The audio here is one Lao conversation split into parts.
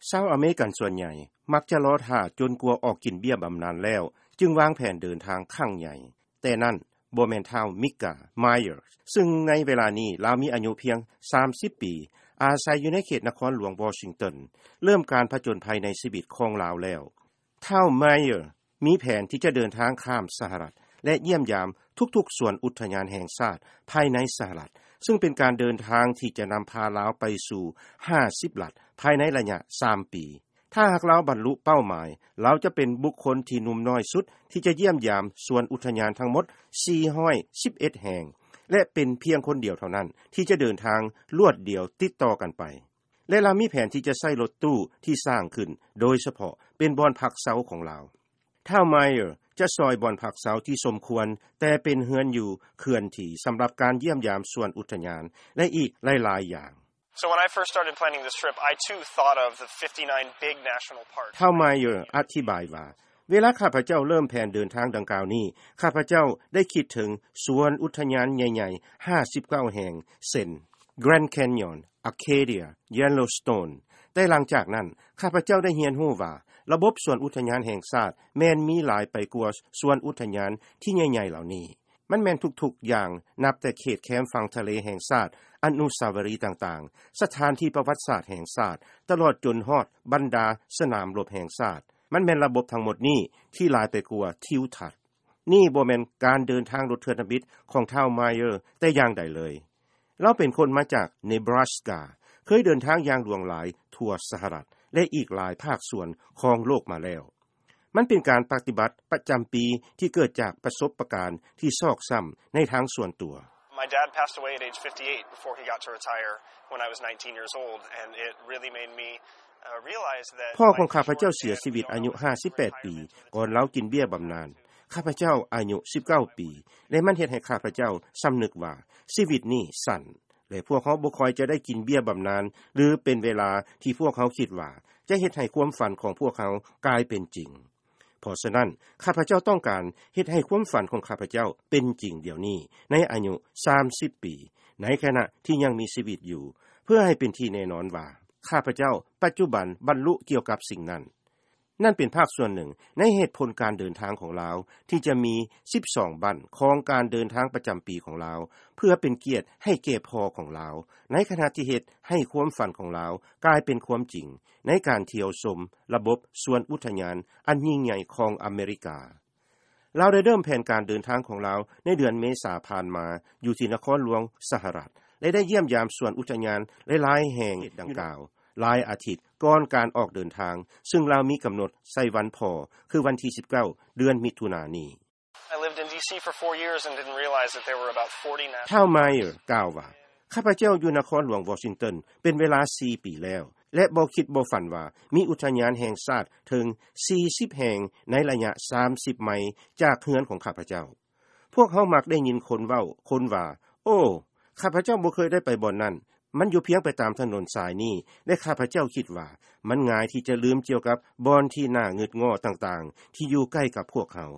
ຊາວອາເມລິກັນສ່ວນໃຫຍ່ມັກຈະລໍຖ້າຈົນກວ່າອອກກິນເບ້ຍບຳນານແລ້ວ ຈຶ່ງວາງແຜນເດີນທາງຄັ້ງໃຫຍ່. ແຕ່ນັ້ນບໍ່ແມ່ນທ້າວ Micah Myers ຊຶ່ງໃນເວລານີ້ລາວມີອາຍຸພຽງ ສາມສິບ ປີ, ອາໄສຢູ່ໃນເຂດນະຄອນຫຼວງວໍຊິງຕັນ, ເລີ່ມການຜະຈົນໄພໃນຊີວິດຂອງລາວແລ້ວ. ທ້າວ Myers ມີແຜນທີ່ຈະເດີນທາງຂ້າມສະຫະລັດ ແລະ ຢ້ຽມຢາມທຸກໆສວນອຸດທະຍານແຫ່ງຊາດພາຍໃນສະຫະລັດ, ຊຶ່ງເປັນການເດີນທາງທີ່ຈະນຳພາລາວໄປສູ່ ຫ້າສິບ ລັດ ພາຍໃນໄລຍະ ສາມ ປີ. ຖ້າຫາກລາວບັນລຸເປົ້າໝາຍ, ລາວຈະເປັນບຸກຄົນທີ່ໜຸ່ມນ້ອຍສຸດທີ່ຈະຢ້ຽມຢາມສວນອຸດທະຍານທັງໝົດ ສີ່ຮ້ອຍສິບເອັດ ແຫ່ງ ແລະ ເປັນພຽງຄົນດຽວເທົ່ານັ້ນທີ່ຈະເດີນທາງລວດດຽວຕິດຕໍ່ກັນໄປ. ແລະ ລາວມີແຜນທີ່ຈະໃຊ້ລົດຕູ້ທີ່ສ້າງຂຶ້ນໂດຍສະເພາະເປັນບ່ອນພັກເຊົາຂອງລາວ. ທ້າວ Myers ຈະຊ່ອຍບ່ອນພັກເຊົາທີ່ສົມຄວນ, ແຕ່ເປັນເຮືອນຢູ່ເຄື່ອນທີ່ສຳລັບການຢ້ຽມຢາມສວນອຸດທະຍານ ແລະ ອີກຫຼາຍໆຢ່າງ. So when I first started planning this trip, I too thought of the fifty-nine big national parks. ທ້າວ Myers ອະທິບາຍວ່າ, ເວລາຂ້າພະເຈົ້າເລີ່ມແຜນເດີນທາງດັ່ງກ່າວນີ້, ຂ້າພະເຈົ້າໄດ້ຄິດເຖິງສວນອຸດທະຍານໃຫຍ່ໆ ຫ້າສິບເກົ້າ ແຫ່ງ ເຊັ່ນ Grand Canyon, Acadia, Yellowstone. ແຕ່ຫຼັງຈາກນັ້ນ, ຂ້າພະເຈົ້າໄດ້ຮຽນຮູ້ວ່າ ລະບົບສວນອຸດທະຍານແຫ່ງຊາດແມ່ນມີຫຼາຍໄປກວ່າສວນອຸດທະຍານທີ່ໃຫຍ່ໆເຫຼົ່ານີ້. ມັນແມ່ນທຸກໆຢ່າງ, ນັບແຕ່ເຂດແຄມຝັ່ງທະເລແຫ່ງຊາດ, ອະນຸສາວະລີຕ່າງໆ, ສະຖານທີ່ປະຫວັດສາດແຫ່ງຊາດ, ຕະຫຼອດຈົນຮອດບັນດາສະໜາມລົບແຫ່ງຊາດ. ມັນແມ່ນລະບົບທັງໝົດນີ້ທີ່ຫຼາຍໄປກວ່າທິວທັດ. ນີ້ບໍ່ແມ່ນການເດີນທາງລົດເທື່ອທຳອິດຂອງທ້າວ Myers ແຕ່ຢ່າງໃດເລີຍ. ລາວເປັນຄົນມາຈາກ Nebraska, ເຄີຍເດີນທາງຢ່າງຫຼວງຫຼາຍທົ່ວສະຫະລັດ ແລະ ອີກຫຼາຍພາກສ່ວນຂອງໂລກມາແລ້ວ. ມັນເປັນການປະຕິບັດປະຈຳປີທີ່ເກີດຈາກປະສົບປະການທີ່ຊອກຊ້ຳໃນທາງສ່ວນຕົວ. My dad passed away at age fifty-eight before he got to retire when I was nineteen years old, and it really made me, uh, realize that ພໍ່ຂອງຂ້າພະເຈົ້າເສຍຊີວິດອາຍຸ ຫ້າສິບແປດ ປີ ກ່ອນລາວກິນເບ້ຍບຳນານ. ຂ້າພະເຈົ້າອາຍຸ ສິບເກົ້າ ປີ ແລະ ມັນເຮັດໃຫ້ຂ້າພະເຈົ້າສຳນຶກວ່າຊີວິດນີ້ສັ້ນ ແລະ ພວກເຮົາບໍ່ຄ່ອຍຈະໄດ້ກິນເບ້ຍບຳນານ ຫຼື ເປັນເວລາທີ່ພວກເຮົາຄິດວ່າຈະເຮັດໃຫ້ຄວາມຝັນຂອງພວກເຮົາກາຍເປັນຈິງ. ເພາະສະນັ້ນ, ຂ້າພະເຈົ້າຕ້ອງການເຮັດໃຫ້ຄວາມຝັນຂອງຂ້າພະເຈົ້າເປັນຈິງດຽວນີ້ ໃນອາຍຸ ສາມສິບ ປີ, ໃນຂະນະທີ່ຍັງມີຊີວິດຢູ່, ເພື່ອໃຫ້ເປັນທີ່ແນ່ນອນວ່າ ຂ້າພະເຈົ້າປັດຈຸບັນບັນລຸກ່ຽວກັບສິ່ງນັ້ນ. ນັ້ນເປັນພາກສ່ວນໜຶ່ງໃນເຫດຜົນການເດີນທາງຂອງລາວ ທີ່ຈະມີ ສິບສອງ ບັ້ນຂອງການເດີນທາງປະຈຳປີຂອງລາວ ເພື່ອເປັນກຽດໃຫ້ແກ່ພໍ່ຂອງລາວ, ໃນຂະນະທີ່ເຮັດໃຫ້ຄວາມຝັນຂອງລາວກາຍເປັນຄວາມຈິງ ໃນການທ່ຽວຊົມລະບົບສວນອຸດທະຍານອັນຍິ່ງໃຫຍ່ຂອງອາເມລິກາ. ລາວໄດ້ເລີ່ມແຜນການເດີນທາງຂອງລາວໃນເດືອນເມສາຜ່ານມາ ຢູ່ທີ່ນະຄອນຫຼວງສະຫະລັດ ແລະ ໄດ້ຢ້ຽມຢາມສວນອຸດທະຍານຫຼາຍໆແຫ່ງດັ່ງກ່າວ ຫຼາຍອາທິດກ່ອນການອອກເດີນທາງ, ຊຶ່ງລາວມີກຳນົດໃສ່ວັນພໍ່ ຄືວັນທີ ສິບເກົ້າ ເດືອນມິຖຸນານີ້. I lived in D C for four years and didn't realize that there were about forty national parks. ທ້າວ Myers ກ່າວວ່າ, ຂ້າພະເຈົ້າຢູ່ນະຄອນຫຼວງວໍຊິງຕັນເປັນເວລາ ສີ່ ປີແລ້ວ ແລະ ບໍ່ຄິດບໍ່ຝັນວ່າມີອຸດທະຍານແຫ່ງຊາດເຖິງ ສີ່ສິບ ແຫ່ງໃນໄລຍະ ສາມສິບ ໄມຈາກເຮືອນຂອງຂ້າພະເຈົ້າ. ພວກເຮົາມັກໄດ້ຍິນຄົນເວົ້າຄົນວ່າ, ໂອ້, ຂ້າພະເຈົ້າບໍ່ເຄີຍໄດ້ໄປບ່ອນນັ້ນ, ມັນຢູ່ພຽງໄປຕາມຖະໜົນສາຍນີ້ ແລະ ຂ້າພະເຈົ້າຄິດວ່າມັນງ່າຍທີ່ຈະລືມກ່ຽວກັບບ່ອນທີ່ໜ້າງຶດງໍ້ຕ່າງໆ ທີ່ຢູ່ໃກ້ກັບພວກເຮົາ.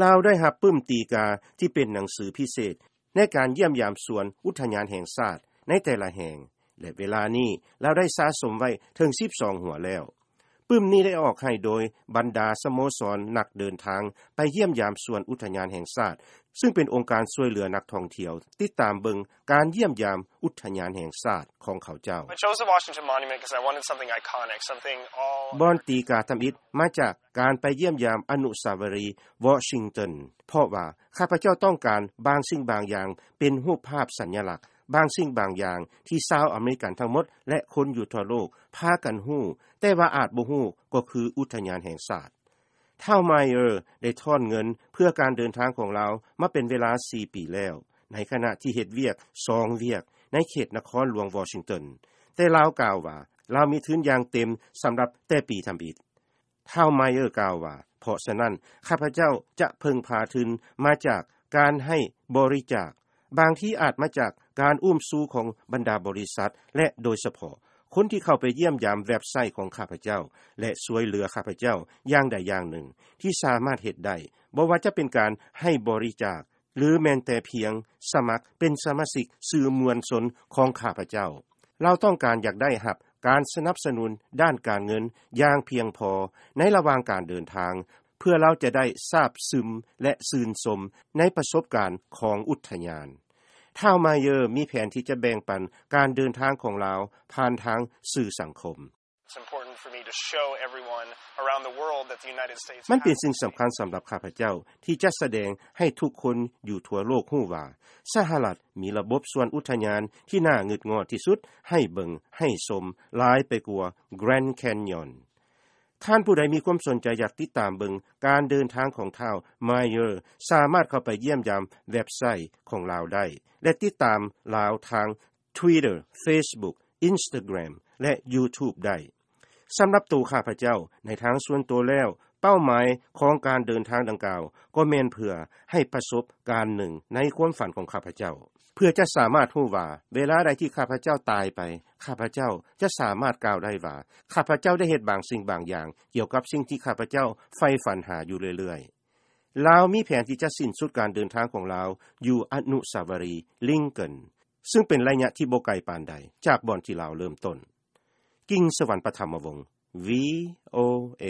ລາວໄດ້ຮັບປຶ້ມຕີກາທີ່ເປັນໜັງສືພິເສດ ໃນການຢ້ຽມຢາມສວນອຸດທະຍານແຫ່ງຊາດໃນແຕ່ລະແຫ່ງ ແລະ ເວລານີ້ລາວໄດ້ສະສົມໄວ້ເຖິງ ສິບສອງ ຫົວແລ້ວ. ປຶ້ມນີ້ໄດ້ອອກໃຫ້ໂດຍບັນດາສະໂມສອນນັກເດີນທາງໄປຢ້ຽມຢາມສວນອຸດທະຍານແຫ່ງຊາດ, ຊຶ່ງເປັນອົງການຊ່ວຍເຫຼືອນັກທ່ອງທ່ຽວຕິດຕາມເບິ່ງການຢ້ຽມຢາມອຸດທະຍານແຫ່ງຊາດຂອງເຂົາເຈົ້າ. I chose the Washington Monument 'cause I wanted something iconic, something all ບ່ອນຕີກາທຳອິດມາຈາກການໄປຢ້ຽມຢາມອະນຸສາວະລີວໍຊິງຕັນ, ເພາະວ່າ ຂ້າພະເຈົ້າຕ້ອງການບາງສິ່ງບາງຢ່າງເປັນຮູບພາບສັນຍະລັກ, ບາງສິ່ງບາງຢ່າງທີ່ຊາວອາເມລິກັນທັງໝົດ ແລະ ຄົນຢູ່ທົ່ວໂລກພາກັນຮູ້, ແຕ່ວ່າອາດບໍ່ຮູ້ກໍຄືອຸດທະຍານແຫ່ງຊາດ. ທ້າວ Myers ໄດ້ທ້ອນເງິນເພື່ອການເດີນທາງຂອງລາວມາເປັນເວລາ ສີ່ ປີແລ້ວ, ໃນຂະນະທີ່ເຮັດວຽກ ສອງ ວຽກໃນເຂດນະຄອນຫຼວງວໍຊິງຕັນ, ແຕ່ລາວກ່າວວ່າລາວມີທຶນຢ່າງເຕັມສຳລັບແຕ່ປີທຳອິດ. ທ້າວ Myers ກ່າວວ່າ, ເພາະສະນັ້ນ ຂ້າພະເຈົ້າຈະເພິ່ງພາທຶນມາຈາກການໃຫ້ບໍລິຈາກ, ບາງທີອາດມາຈາກການອຸ້ມຊູຂອງບັນດາບໍລິສັດ ແລະ ໂດຍສະເພາະຄົນທີ່ເຂົ້າໄປຢ້ຽມຢາມເວັບໄຊຂອງຂ້າພະເຈົ້າ ແລະ ຊ່ວຍເຫຼືອຂ້າພະເຈົ້າຢ່າງໃດຢ່າງໜຶ່ງທີ່ສາມາດເຮັດໄດ້, ບໍ່ວ່າຈະເປັນການໃຫ້ບໍລິຈາກ ຫຼື ແມ່ນແຕ່ພຽງສະໝັກເປັນສະມາຊິກສື່ມວນຊົນຂອງຂ້າພະເຈົ້າ. ລາວຕ້ອງການຢາກໄດ້ຮັບ ການສະໜັບສະໜູນດ້ານການເງິນຢ່າງພຽງພໍໃນລະຫວ່າງການເດີນທາງ ເພື່ອລາວຈະໄດ້ຊາບຊຶມ ແລະ ຊື່ນຊົມໃນປະສົບການຂອງອຸດທະຍານ. ທ້າວ Meyer ມີແຜນທີ່ຈະແບ່ງປັນການເດີນທາງຂອງລາວຜ່ານທາງສື່ສັງຄົມ. It's important for me to show everyone around the world that the United States ມັນເປັນສິ່ງສຳຄັນສຳລັບຂ້າພະເຈົ້າ ທີ່ຈະສະແດງໃຫ້ທຸກຄົນຢູ່ທົ່ວໂລກຮູ້ວ່າ ສະຫະລັດມີລະບົບສວນອຸດທະຍານທີ່ໜ້າງຶດງອດທີ່ສຸດໃຫ້ເບິ່ງໃຫ້ຊົມ ຫຼາຍໄປກວ່າ Grand Canyon. ທ່ານຜູ້ໃດມີຄວາມສົນໃຈຢາກຕິດຕາມເບິ່ງການເດີນທາງຂອງທ້າວ Meyer ສາມາດເຂົ້າໄປຢ້ຽມຢາມເວັບໄຊຂອງລາວໄດ້ ແລະ ຕິດຕາມລາວທາງ Twitter, Facebook, Instagram ແລະ YouTube ໄດ້. ສຳລັບໂຕຂ້າພະເຈົ້າ, ໃນທາງສ່ວນໂຕແລ້ວ, ເປົ້າໝາຍຂອງການເດີນທາງດັ່ງກ່າວ ກໍແມ່ນເພື່ອໃຫ້ປະສົບການໜຶ່ງໃນຄວາມຝັນຂອງຂ້າພະເຈົ້າ, ເພື່ອຈະສາມາດຮູ້ວ່າ ເວລາໃດທີ່ຂ້າພະເຈົ້າຕາຍໄປ, ຂ້າພະເຈົ້າຈະສາມາດກ່າວໄດ້ວ່າ ຂ້າພະເຈົ້າໄດ້ເຮັດບາງສິ່ງບາງຢ່າງ ກ່ຽວກັບສິ່ງທີ່ຂ້າພະເຈົ້າໃຝ່ຝັນຫາຢູ່ເລື້ອຍໆ. ລາວມີແຜນທີ່ຈະສິ້ນສຸດການເດີນທາງຂອງລາວຢູ່ອະນຸສາວະຣີລິງເກີນ ຊຶ່ງເປັນໄລຍະທີ່ບໍ່ໄກປານໃດຈາກບ່ອນທີ່ລາວເລີ່ມຕົ້ນ. ກິງສະຫວັນ ປະຖຳມະວົງ VOA.